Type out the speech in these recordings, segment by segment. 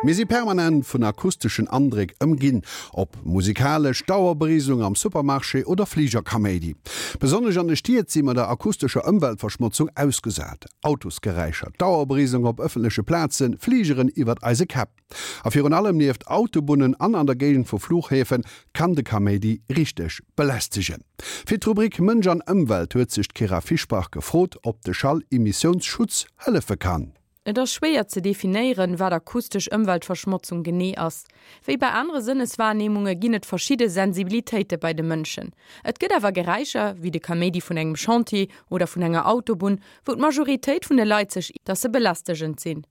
Mir si permanent vun akusteschen Andréck ëmginn, ob musikalesch, Dauerberiselung am Supermarché oder Fligerkaméidi. Besonnesch an de Stied si mer der akustescher Ëmweltverschmotzung ausgesat, Autosgeräischer, Dauerberiselung op ëffentleche Plazen, Fligeren iwwert eise Käpp. A virun allem nieft Autobunnen an an der Géigend vu Fluchhäfe kann de Kaméidi richteg belästegen. Fir d'Rubrik Mënsch an Ëmwelt huet sech d'Kyra Fischbach gefrot, ob de Schallemissiounsschutz hëllefe kann. Et ass schwéier ze definéieren, wat akustesch Ëmweltverschmotzung genee ass. Wéi bei anere Sënneswahrnehmunge ginn et verschidde Sensibilitéite bei de Mënschen. Et gëtt awer Geräischer, wéi de Kaméidi vun engem Chantier oder vun enger Autobunn, wou d'Majoritéit vun de Leit sech, dass se belästegend sinn.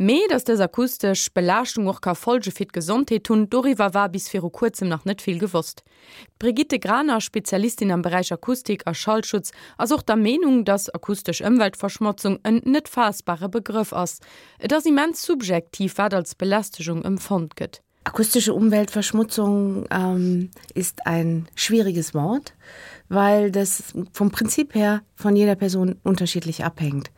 Mee dass dës akustesch Belaaschtung och ka Folge fir d'Gesondheet hunn, doriwwer war bis viru kuerzem nach net vill gewosst. D'Brigitte Graner, Spezialistin am Beräich Akustik a Schallschutz, ass och der Meenung, dass akustesch Ëmweltverschmotzung en net faassbare Begrëff ass. Et ass immens subjektiv, wat als Belästegung empfonnt gëtt. Akustische Umweltverschmutzung ähm, ist ein schwieriges Wort, weil das vom Prinzip her von jeder Person unterschiedlich abhängt.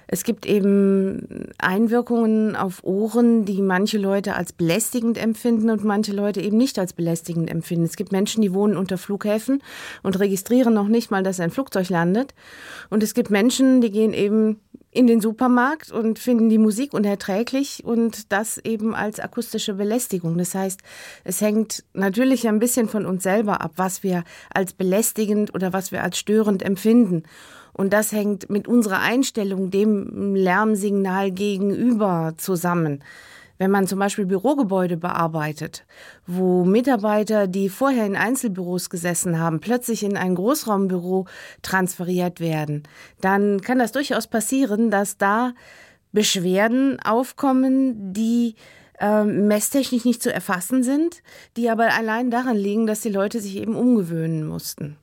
Es gibt eben Einwirkungen auf Ohren, die manche Leute als belästigend empfinden und manche Leute eben nicht als belästigend empfinden. Es gibt Menschen, die wohnen unter Flughäfen und registrieren noch nicht mal, dass ein Flugzeug landet. Und es gibt Menschen, die gehen eben in den Supermarkt und finden die Musik unerträglich und das eben als akustische Belästigung. Das heißt, es hängt natürlich ein bisschen von uns selber ab, was wir als belästigend oder was wir als störend empfinden. Und das hängt mit unserer Einstellung dem Lärmsignal gegenüber zusammen. Wenn man zum Beispiel Bürogebäude bearbeitet, wo Mitarbeiter, die vorher in Einzelbüros gesessen haben, plötzlich in ein Großraumbüro transferiert werden, dann kann das durchaus passieren, dass da Beschwerden aufkommen, die äh, messtechnisch nicht zu erfassen sind, die aber allein daran liegen, dass die Leute sich eben umgewöhnen mussten.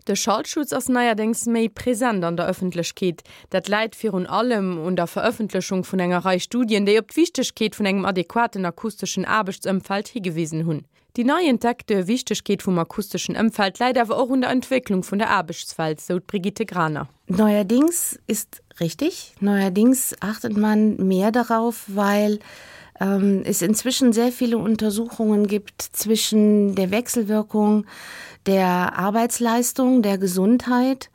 De Schallschutz ass neierdéngs méi present an der Ëffentlechkeet. Dat läit virun allem un der Verëffentlechung vun enger Rei Studien, déi op d'Wichtegkeet vun engem adequaten akusteschen Aarbechtsëmfeld higewisen hunn. Déi nei entdeckte Wichtegkeet vum akusteschen Ëmfeld läit awer och un der Entwécklung vun der Aarbechtswelt, sou d'Brigitte Graner. Neuerdings ist richtig. Neuerdings achtet man mehr darauf, weil ähm, es inzwischen sehr viele Untersuchungen gibt zwischen der Wechselwirkung der Arbeitsleistung, der Gesundheit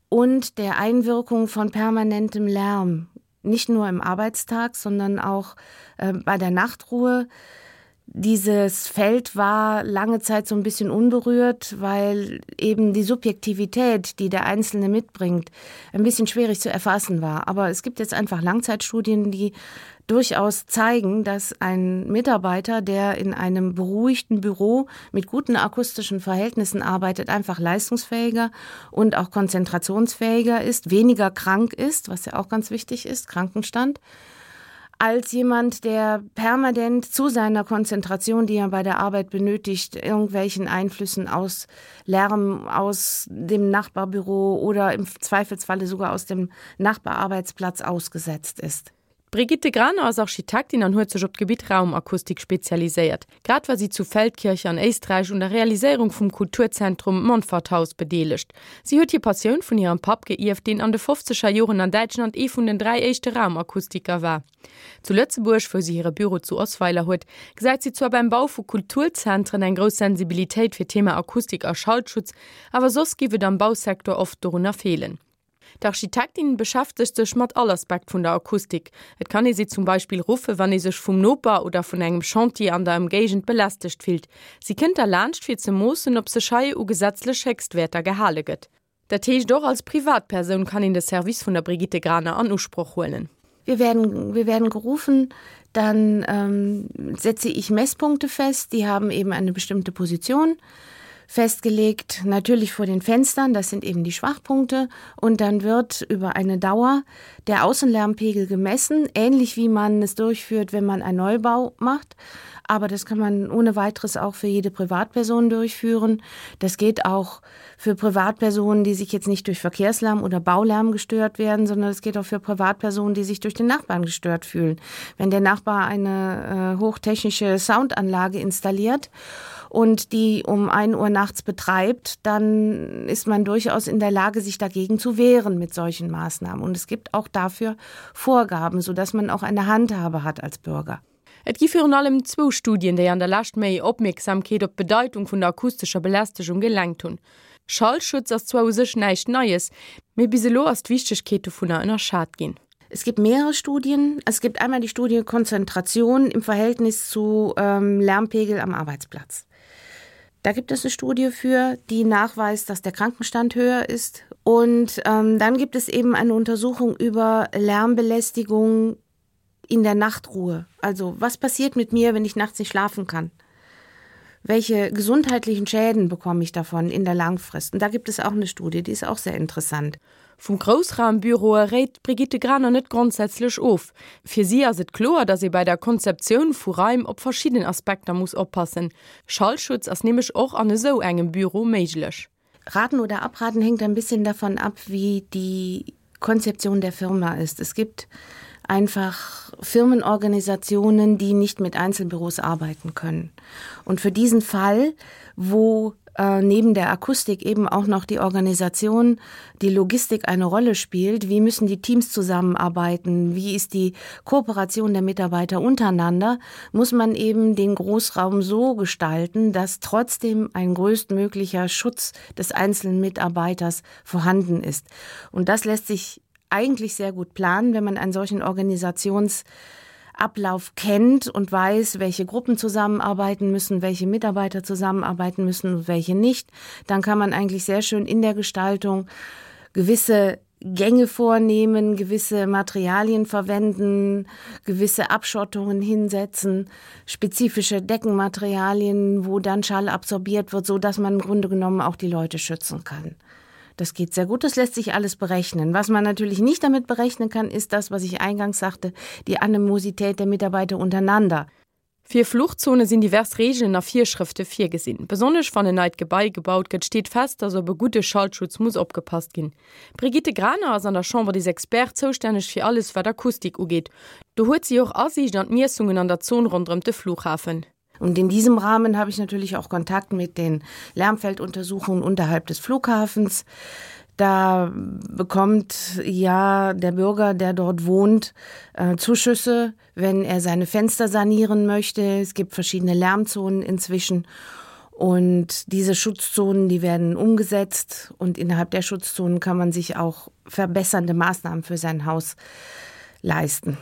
und der Einwirkung von permanentem Lärm, nicht nur im Arbeitstag, sondern auch äh, bei der Nachtruhe. Dieses Feld war lange Zeit so ein bisschen unberührt, weil eben die Subjektivität, die der Einzelne mitbringt, ein bisschen schwierig zu erfassen war. Aber es gibt jetzt einfach Langzeitstudien, die durchaus zeigen, dass ein Mitarbeiter, der in einem beruhigten Büro mit guten akustischen Verhältnissen arbeitet, einfach leistungsfähiger und auch konzentrationsfähiger ist, weniger krank ist, was ja auch ganz wichtig ist, Krankenstand als jemand, der permanent zu seiner Konzentration, die er bei der Arbeit benötigt, irgendwelchen Einflüssen aus Lärm aus dem Nachbarbüro oder im Zweifelsfalle sogar aus dem Nachbararbeitsplatz ausgesetzt ist. D'Brigitte Graner ass Architektin an huet sech op d'Gebitt Raumakustik spezialiséiert. Grad war si zu Feldkirch an Éisträich un der Realiséierung vum Kulturzentrum Montforthaus bedeelegt. Si huet hir Passioun vun hirem Papp geierft, deen an de fofzeger Joren an Däitschland ee vun den 3 éischte Raumakustiker war. Zu Lëtzebuerg, wou si hire Büro zu Osweiler huet, gesäit si zwar beim Bau vu Kulturzentren eng grouss Sensibilitéit fir d'Thema Akustik a Schallschutz, awer soss giff et am Bausecteur oft dorunner feelen. D'Architektin beschäftegt sech mat all Aspekt vun der Akustik. Et kann ee si zum Beispill ruffe wann ee sech vum Noper oder vun engem Chantier an der Ëmgéigend belästegt fillt. Si kënnt da laanscht fir ze moossen, ob sech hei u gesetzlech Héchstwäerter gehale gëtt. Dat heescht och als Privatpersoun kann een de Service vun der Brigitte Graner an Usproch huelen. Wir werden, wir werden gerufen, dann ähm, setze ich Messpunkte fest, die haben eben eine bestimmte Position festgelegt, natürlich vor den Fenstern, das sind eben die Schwachpunkte und dann wird über eine Dauer der Außenlärmpegel gemessen, ähnlich wie man es durchführt, wenn man einen Neubau macht. Aber das kann man ohne weiteres auch für jede Privatperson durchführen. Das geht auch für Privatpersonen, die sich jetzt nicht durch Verkehrslärm oder Baulärm gestört werden, sondern es geht auch für Privatpersonen, die sich durch den Nachbarn gestört fühlen. Wenn der Nachbar eine äh, hochtechnische Soundanlage installiert. und die um 1 Uhr nachts betreibt, dann ist man durchaus in der Lage, sich dagegen zu wehren mit solchen Maßnahmen. Und es gibt auch dafür Vorgaben, sodass man auch eine Handhabe hat als Bürger. Et gi virun allem zwou Studien, déi an der Lescht méi Opmierksamkeet op d'Bedeitung vun der akustescher Belästegung gelenkt hunn. Schallschutz ass zwar u sech näischt Neies, mee bis elo ass d'Wichtegkeet dovunner ënnerschat ginn. Es gibt mehrere Studien. Es gibt einmal die Studie Konzentration im Verhältnis zu ähm, Lärmpegel am Arbeitsplatz. Da gibt es eine Studie für, die nachweist, dass der Krankenstand höher ist. Und ähm, dann gibt es eben eine Untersuchung über Lärmbelästigung in der Nachtruhe. Also was passiert mit mir, wenn ich nachts nicht schlafen kann? Welche gesundheitlichen Schäden bekomme ich davon in der Langfrist? Und da gibt es auch eine Studie, die ist auch sehr interessant. Vum Groussraumbüroe réit d'Brigitte Graner net grondsätzlech of. Fir si ass et kloer, datt ee bei der Konzeptioun vu Raim op verschidden Aspekter muss oppassen. Schallschutz ass nämlech och an esou engem Büro méiglech. Raten oder abraten hängt ein bisschen davon ab, wie die Konzeption der Firma ist. Es gibt einfach Firmenorganisationen, die nicht mit Einzelbüros arbeiten können. Und für diesen Fall, wo äh, neben der Akustik eben auch noch die Organisation, die Logistik eine Rolle spielt, wie müssen die Teams zusammenarbeiten, wie ist die Kooperation der Mitarbeiter untereinander, muss man eben den Großraum so gestalten, dass trotzdem ein größtmöglicher Schutz des einzelnen Mitarbeiters vorhanden ist. Und das lässt sich eigentlich sehr gut planen, wenn man einen solchen Organisations Ablauf kennt und weiß, welche Gruppen zusammenarbeiten müssen, welche Mitarbeiter zusammenarbeiten müssen und welche nicht, dann kann man eigentlich sehr schön in der Gestaltung gewisse Gänge vornehmen, gewisse Materialien verwenden, gewisse Abschottungen hinsetzen, spezifische Deckenmaterialien, wo dann Schall absorbiert wird, so dass man im Grunde genommen auch die Leute schützen kann. Das geht sehr gut, das lässt sich alles berechnen. Was man natürlich nicht damit berechnen kann, ist das, was ich eingangs sagte, die Animosität der Mitarbeiter untereinander. Fir Fluchtzone sinn divers Reegelen a Virschrëfte virgesinn. Besonnesch wann en neit Gebai gebaut gëtt, steet fest, datt op e gudde Schallschutz muss opgepasst ginn. D'Brigitte Graner ass an der Chambre des Experts zoustänneg fir alles wat Akustik ugeet. Do huet si och Asiicht an d'Miessungen an der Zon ronderëm de Flughafen. Und in diesem Rahmen habe ich natürlich auch Kontakt mit den Lärmfelduntersuchungen unterhalb des Flughafens. Da bekommt ja der Bürger, der dort wohnt, äh, Zuschüsse, wenn er seine Fenster sanieren möchte. Es gibt verschiedene Lärmzonen inzwischen. Und diese Schutzzonen, die werden umgesetzt und innerhalb der Schutzzonen kann man sich auch verbessernde Maßnahmen für sein Haus leisten.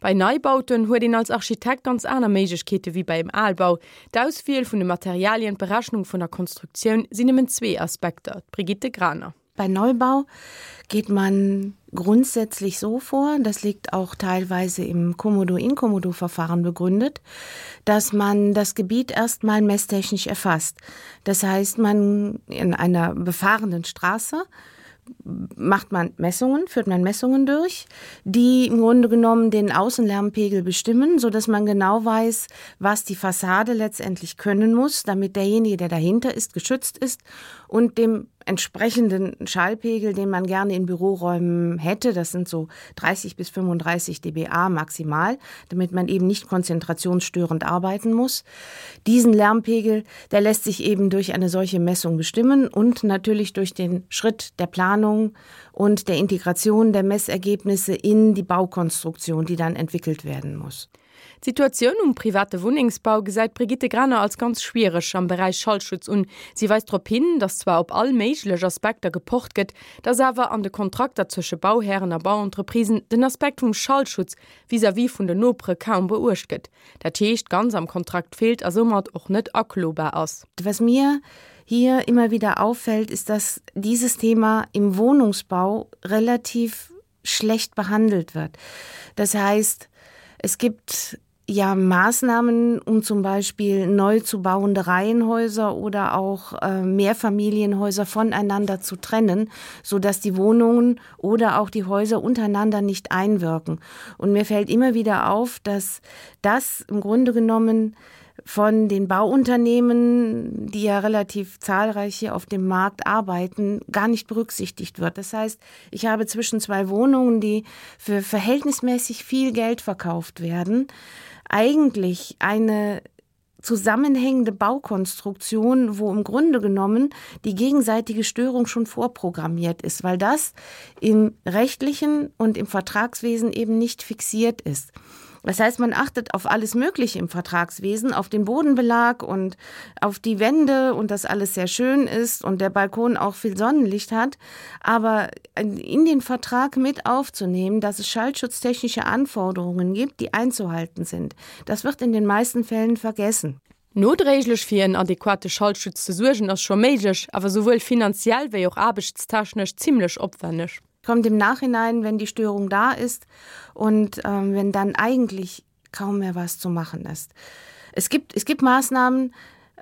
Bei Neibauten huet een als Architekt ganz aner Méiglechkeete wéi bei em Albau. D'Auswiel vun de Materialien, d'Berechnung vun der Konstruktioun sinn nëmmen zwee Aspekter. D'Brigitte Graner. Bei Neubau geht man grundsätzlich so vor, das liegt auch teilweise im Komodo-Inkomodo-Verfahren begründet, dass man das Gebiet erstmal messtechnisch erfasst. Das heißt, man in einer befahrenen Straße, macht man Messungen, führt man Messungen durch, die im Grunde genommen den Außenlärmpegel bestimmen, so dass man genau weiß, was die Fassade letztendlich können muss, damit derjenige, der dahinter ist, geschützt ist und dem entsprechenden Schallpegel, den man gerne in Büroräumen hätte, das sind so 30 bis 35 dBA maximal, damit man eben nicht konzentrationsstörend arbeiten muss. Diesen Lärmpegel, der lässt sich eben durch eine solche Messung bestimmen und natürlich durch den Schritt der Planung und der Integration der Messergebnisse in die Baukonstruktion, die dann entwickelt werden muss. D'Situatioun um private Wunnengsbau gesäit d'Brigitte Graner als ganz schwiereg am Beräich Schallschutz un. Si weist drop hin, datt zwar op all méiglech Aspekter gepocht gëtt, datt awer an de Kontrakter zwësche Bauhären a Bauentreprisen den Aspekt vum Schallschutz vis-à-vis vun den Nopere kaum beuecht gëtt. Dat heescht, ganz am Kontrakt feelt a soumat och net aklobar ass. Was mir hier immer wieder auffällt, ist, dass dieses Thema im Wohnungsbau relativ schlecht behandelt wird. Das heißt, es gibt ja Maßnahmen, um zum Beispiel neu zu bauende Reihenhäuser oder auch äh, Mehrfamilienhäuser voneinander zu trennen, so dass die Wohnungen oder auch die Häuser untereinander nicht einwirken. Und mir fällt immer wieder auf, dass das im Grunde genommen, von den Bauunternehmen, die ja relativ zahlreich hier auf dem Markt arbeiten, gar nicht berücksichtigt wird. Das heißt, ich habe zwischen zwei Wohnungen, die für verhältnismäßig viel Geld verkauft werden, eigentlich eine. zusammenhängende Baukonstruktion, wo im Grunde genommen die gegenseitige Störung schon vorprogrammiert ist, weil das im rechtlichen und im Vertragswesen eben nicht fixiert ist. Das heißt, man achtet auf alles Mögliche im Vertragswesen, auf den Bodenbelag und auf die Wände und dass alles sehr schön ist und der Balkon auch viel Sonnenlicht hat. Aber in den Vertrag mit aufzunehmen, dass es schallschutztechnische Anforderungen gibt, die einzuhalten sind, das wird in den meisten Fällen vergessen. Nodréiglech fir en adequate Schallschutz ze suergen ass scho méiglech, awer souwuel finanziell wéi och aarbechtstechnesch zimmlech opwenneg. Kommt im Nachhinein, wenn die Störung da ist und ähm, wenn dann eigentlich kaum mehr was zu machen ist. Es gibt, es gibt Maßnahmen,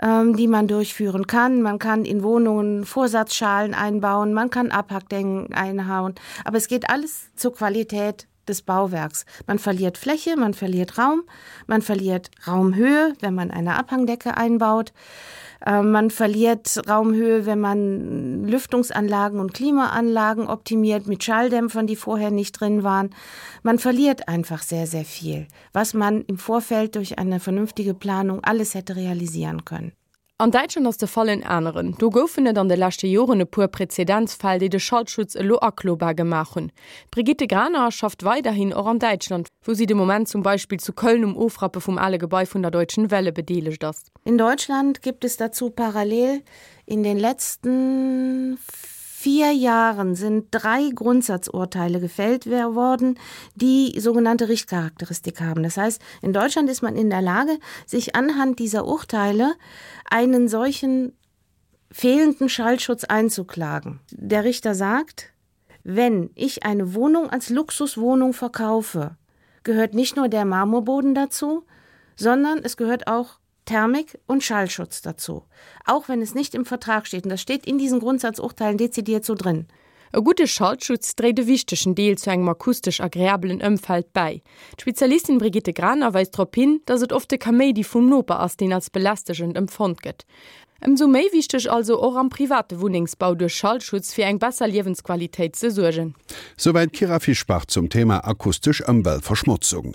ähm, die man durchführen kann. Man kann in Wohnungen Vorsatzschalen einbauen, man kann Abhackdenken einhauen, aber es geht alles zur Qualität des Bauwerks. Man verliert Fläche, man verliert Raum, man verliert Raumhöhe, wenn man eine Abhangdecke einbaut. Äh, man verliert Raumhöhe, wenn man Lüftungsanlagen und Klimaanlagen optimiert mit Schalldämpfern, die vorher nicht drin waren. Man verliert einfach sehr, sehr viel, was man im Vorfeld durch eine vernünftige Planung alles hätte realisieren können. An Däitschland ass de Fall en aneren. Do goufen et an de leschte Joren e puer Präzedenzfäll, déi de Schallschutz elo aklobar gemaach hunn. D'Brigitte Graner schafft weiderhin och an Däitschland, wou si de Moment zum Beispill zu Köln um Ofrappe vum ale Gebai vun der Deutschen Welle bedeelegt ass. In Deutschland gibt es dazu parallel in den letzten vier Jahren sind drei Grundsatzurteile gefällt worden, die sogenannte Richtcharakteristik haben. Das heißt, in Deutschland ist man in der Lage, sich anhand dieser Urteile einen solchen fehlenden Schallschutz einzuklagen. Der Richter sagt, wenn ich eine Wohnung als Luxuswohnung verkaufe, gehört nicht nur der Marmorboden dazu, sondern es gehört auch Thermik und Schallschutz dazu. Auch wenn es nicht im Vertrag steht und das steht in diesen Grundsatzurteilen dezidiert so drin. E gudde Schallschutz dréit e wichtegen Deel zu engem akustesch agreabelen Ëmfeld bäi. D'Spezialistin Brigitte Graner weist drop hin, dass et oft de Kaméidi vum Noper ass, deen als belästegend empfonnt gëtt. Ëmsou méi wichteg also och am private Wunnengsbau duerch Schallschutz fir eng besser Liewensqualitéit ze suergen. Souwäit d'Kyra Fischbach zum Thema akustesch Ëmweltverschmotzung.